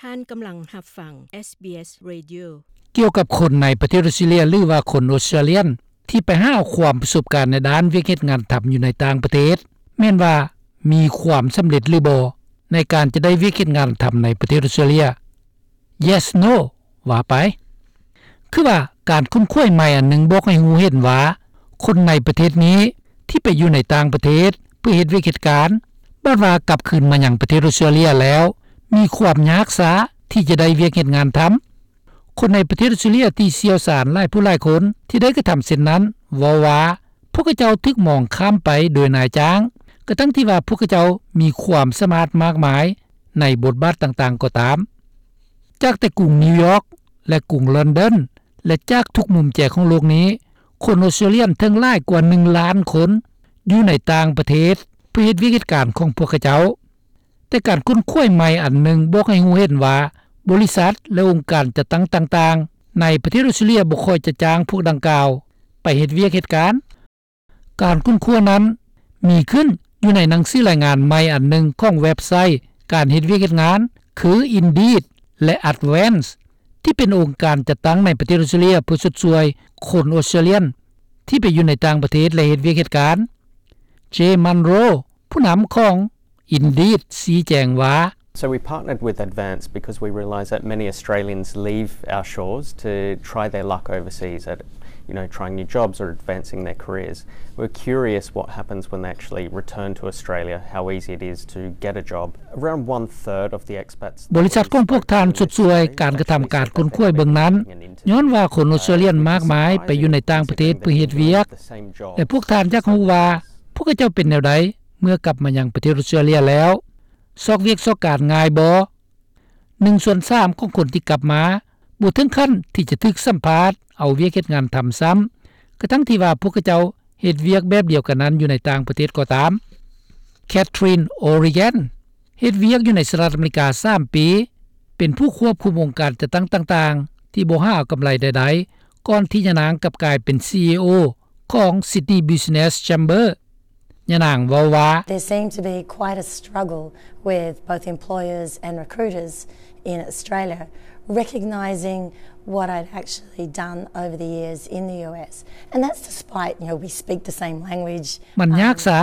ທ່ານກຳລັງຮັບຟັງ ເອສບີເອສ Radio. ກ່ຽວກັບຄົນໃນປະເທດອົດສະຕຣາເລຍ ຫຼືວ່າຄົນອົດສະຕຣາເລຍນ ທີ່ໄປຫາເອົາຄວາມປະສົບການໃນດ້ານວຽກເຮັດງານທຳຢູ່ໃນຕ່າງປະເທດ ແມ່ນວ່າມີຄວາມສຳເລັດຫຼືບໍ່ ໃນການຈະໄດ້ວຽກເຮັດງານທຳໃນປະເທດອົດສະຕຣາເລຍ? Yes, no ວ່າໄປ. ຄືວ່າການຄົ້ນຄວ້າໃໝ່ອັນໜຶ່ງບອກໃຫ້ຮູ້ເຫັນວ່າ ຄົນໃນປະເທດນີ້ທີ່ໄປຢູ່ໃນຕ່າງປະເທດເພື່ອເຮັດວຽກເຮັດການ ບາດວ່າກັບຄືນມາຍັງປະເທດອົດສະຕຣາເລຍແລ້ວ ມີຄວາມຍາກຊ້າທີ່ຈະໄດ້ວຽກເຮັດງານທຳ. ຄົນໃນປະເທດອົດສະຕຣາເລຍທີ່ຊ່ຽວຊານຫຼາຍຜູ້ຫຼາຍຄົນທີ່ໄດ້ກະທຳເຊັ່ນນັ້ນ ເວົ້າວ່າ ພວກເຂົາເຈົ້າຖືກມອງຂ້າມໄປໂດຍນາຍຈ້າງ ກະທັ່ງທີ່ວ່າພວກເຂົາເຈົ້າມີຄວາມສາມາດມາກມາຍໃນບົດບາດຕ່າງໆກໍຕາມ. ຈາກແຕ່ກຸງນິວຢອກ ແລະ ກຸງລອນດອນ ແລະ ຈາກທຸກມຸມແຈຂອງໂລກນີ້ ຄົນອົດສະຕຣາເລຍນເຖິງຫຼາຍກວ່າໜຶ່ງລ້ານຄົນ ຢູ່ໃນຕ່າງປະເທດເພື່ອເຮັດວຽກເຮັດການຂອງພວກເຂົາເຈົ້າ. ແຕ່ການຄົ້ນຄວ້າໃໝ່ອັນໜຶ່ງບອກໃຫ້ຮູ້ເຫັນວ່າ ບໍລິສັດ ແລະ ອົງການຈັດຕັ້ງຕ່າງໆ ໃນປະເທດອົດສະຕຣາເລຍບໍ່ຄ່ອຍຈະຈ້າງພວກດັ່ງກ່າວໄປເຮັດວຽກເຮັດການ. ການຄົ້ນຄວ້ານັ້ນມີຂຶ້ນຢູ່ໃນໜັງສືລາຍງານໃໝ່ອັນໜຶ່ງຂອງເວັບໄຊການເຮັດວຽກເຮັດງານ ຄື Indeed ແລະ Advance ທີ່ເປັນອົງການຈັດຕັ້ງໃນປະເທດອົດສະຕຣາເລຍເພື່ອຊົດຊ່ວຍຄົນອົດສະຕຣາເລຍນທີ່ໄປຢູ່ໃນຕ່າງປະເທດ ແລະ ເຮັດວຽກເຮັດການ. Jay Munro ຜູ້ນຳຂອງ Indeed ຊີ້ແຈງວ່າ So we partnered with Advance because we realised that many Australians leave our shores to try their luck overseas at, you know, trying new jobs or advancing their careers. We're curious what happens when they actually return to Australia, how easy it is to get a job. Around one third of the expats ບໍລິສັດຂອງພວກທ່ານຊົດຊ່ວຍການກະທຳການຄົ້ນຄວ້າເບື້ອງນັ້ນ ຍ້ອນວ່າຄົນອົດສະຕຣາເລຍນມາກມາຍໄປຢູ່ໃນຕ່າງປະເທດເພື່ອເຮັດວຽກ ແລະ ພວກທ່ານຢາກຮູ້ວ່າ ພວກເຂົາເຈົ້າເປັນແນວໃດເມື່ອກັບມາຍັງປະເທດອົດສະຕຣາເລຍແລ້ວ? ຊອກວຽກຊອກການງ່າຍບໍ່? ໜຶ່ງສ່ວນສາມຂອງຄົນທີ່ກັບມາ ບໍ່ເຖິງຂັ້ນທີ່ຈະຖືກສຳພາດເອົາວຽກເຮັດງານທຳຊ້ຳ ກະທັ່ງທີ່ວ່າພວກເຂົາເຈົ້າເຮັດວຽກແບບດຽວກັນນັ້ນຢູ່ໃນຕ່າງປະເທດກໍຕາມ. Catherine O'Regan ເຮັດວຽກຢູ່ໃນສະຫະລັດອາເມລິກາສາມປີ ເປັນຜູ້ຄວບຄຸມອົງການຈັດຕັ້ງຕ່າງໆ ທີ່ບໍ່ຫາເອົາກຳໄລໃດໆ ກ່ອນທີ່ຍານາງກັບກາຍເປັນ ຊີອີໂອ ຂອງ Sydney Business Chamber. ຍານາງເວົ້າວ່າ There seemed to be quite a struggle with both employers and recruiters in Australia recognising what I'd actually done over the years in the US. And that's despite, you know, we speak the same language. ມັນຍາກຊ້າ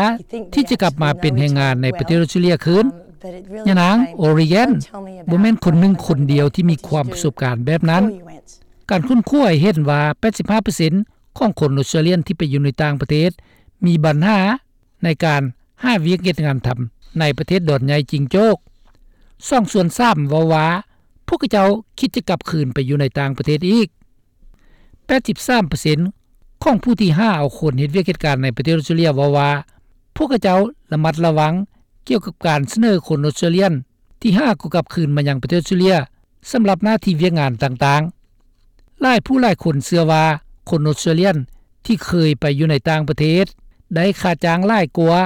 ທີ່ຈະກັບມາເປັນແຮງງານໃນປະເທດອົດສະຕຣາເລຍຄືນ. ຍານາງ O'Regan ບໍ່ແມ່ນຄົນໜຶ່ງຄົນດຽວທີ່ມີຄວາມປະສົບການແບບນັ້ນ. ການຄົ້ນຄວ້າໃຫ້ເຫັນວ່າ ແປດສິບຫ້າເປີເຊັນ ຂອງຄົນອົດສະຕຣາເລຍນທີ່ໄປຢູ່ໃນຕ່າງປະເທດ ມີບັນຫາໃນການຫາວຽກເຮັດງານທຳໃນປະເທດດອນໃຫຍ່ຈິງໂຈກ. ສອງສ່ວນສາມເວົ້າວ່າ ພວກເຂົາເຈົ້າຄິດຈະກັບຄືນໄປຢູ່ໃນຕ່າງປະເທດອີກ. ແປດສິບສາມເປີເຊັນ ຂອງຜູ້ທີ່ຫາເອົາຄົນເຮັດວຽກເຮັດການໃນປະເທດອົດສະຕຣາເລຍເວົ້າວ່າ ພວກເຂົາເຈົ້າລະມັດລະວັງກ່ຽວກັບການສະເໜີຄົນອົດສະຕຣາເລຍນ ທີ່ຫາກໍກັບຄືນມາຍັງປະເທດອົດສະຕຣາເລຍ ສຳລັບໜ້າທີ່ວຽກງານຕ່າງໆ. ຫຼາຍຜູ້ຫຼາຍຄົນເຊື່ອວ່າ ຄົນອົດສະຕຣາເລຍນທີ່ເຄີຍໄປຢູ່ໃນຕ່າງປະເທດ ໄດ້ຄ່າຈ້າງຫຼາຍກວ່າ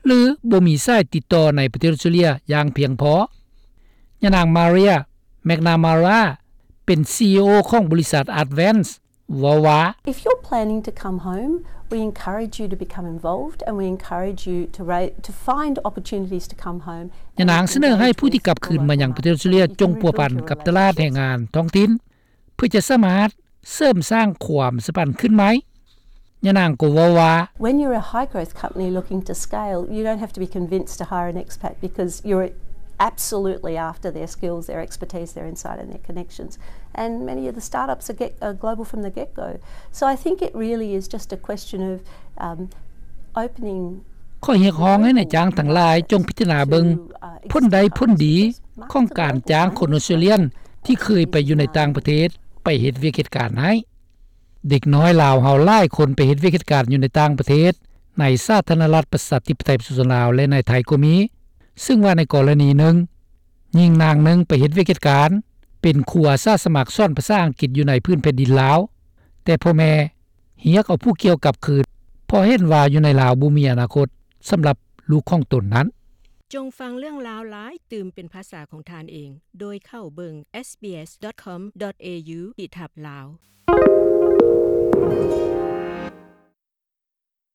ຫຼື ບໍ່ມີສາຍຕິດຕໍ່ໃນປະເທດອົດສະຕຣາເລຍຢ່າງພຽງພໍ. ຍານາງ Maria McNamara ເປັນ ຊີອີໂອ ຂອງບໍລິສັດ Advance ເວົ້າວ່າ If you're planning to come home, we encourage you to become involved and we encourage you to ra- to find opportunities to come home. ຍານາງສະເໜີໃຫ້ຜູ້ທີ່ກັບຄືນມາຍັງປະເທດອົດສະຕຣາເລຍ ຈົ່ງພົວພັນກັບຕະຫຼາດແຮງງານທ້ອງຖິ່ນ ເພື່ອຈະສາມາດເສີມສ້າງຄວາມສຳພັນຄືນໃໝ່. ຍານາງກໍເວົ້າວ່າ When you're a high growth company looking to scale, you don't have to be convinced to hire an expat because you're absolutely after their skills, their expertise, their insight and their connections. And many of the startups are, get, are global from the get-go. So I think it really is just a question of, um, opening ຂ້ອຍຮຽກຮ້ອງໃຫ້ນາຍຈ້າງທັງຫຼາຍຈົ່ງພິຈາລະນາເບິ່ງຜົນໄດ້ຜົນດີຂອງການຈ້າງຄົນອົດສະຕຣາເລຍນທີ່ເຄີຍໄປຢູ່ໃນຕ່າງປະເທດໄປເຮັດວຽກເຮັດການໃຫ້. ເດັກນ້ອຍລາວເຮົາຫຼາຍຄົນໄປເຮັດວຽກເຮັດການຢູ່ໃນຕ່າງປະເທດ ໃນສາທາລະນະລັດປະຊາທິປະໄຕປະຊາຊົນລາວ ແລະ ໃນໄທກໍມີ, ເຊິ່ງວ່າໃນກໍລະນີໜຶ່ງ ຍິງນາງໜຶ່ງໄປເຮັດວຽກເຮັດການ ເປັນຄູອາສາສະໝັກສອນພາສາອັງກິດຢູ່ໃນພື້ນແຜ່ນດິນລາວ, ແຕ່ພໍ່ແມ່ຮຽກເອົາຜູ້ກ່ຽວກັບຄືນ ເພາະເຫັນວ່າຢູ່ໃນລາວບໍ່ມີອະນາຄົດສຳລັບລູກຂອງຕົນນັ້ນ. ຈົ່ງຟັງເລື່ອງລາວຫຼາຍຕື່ມເປັນພາສາຂອງທ່ານເອງ ໂດຍເຂົ້າເບິ່ງ SBS.com.au ຂີດທັບ Lao.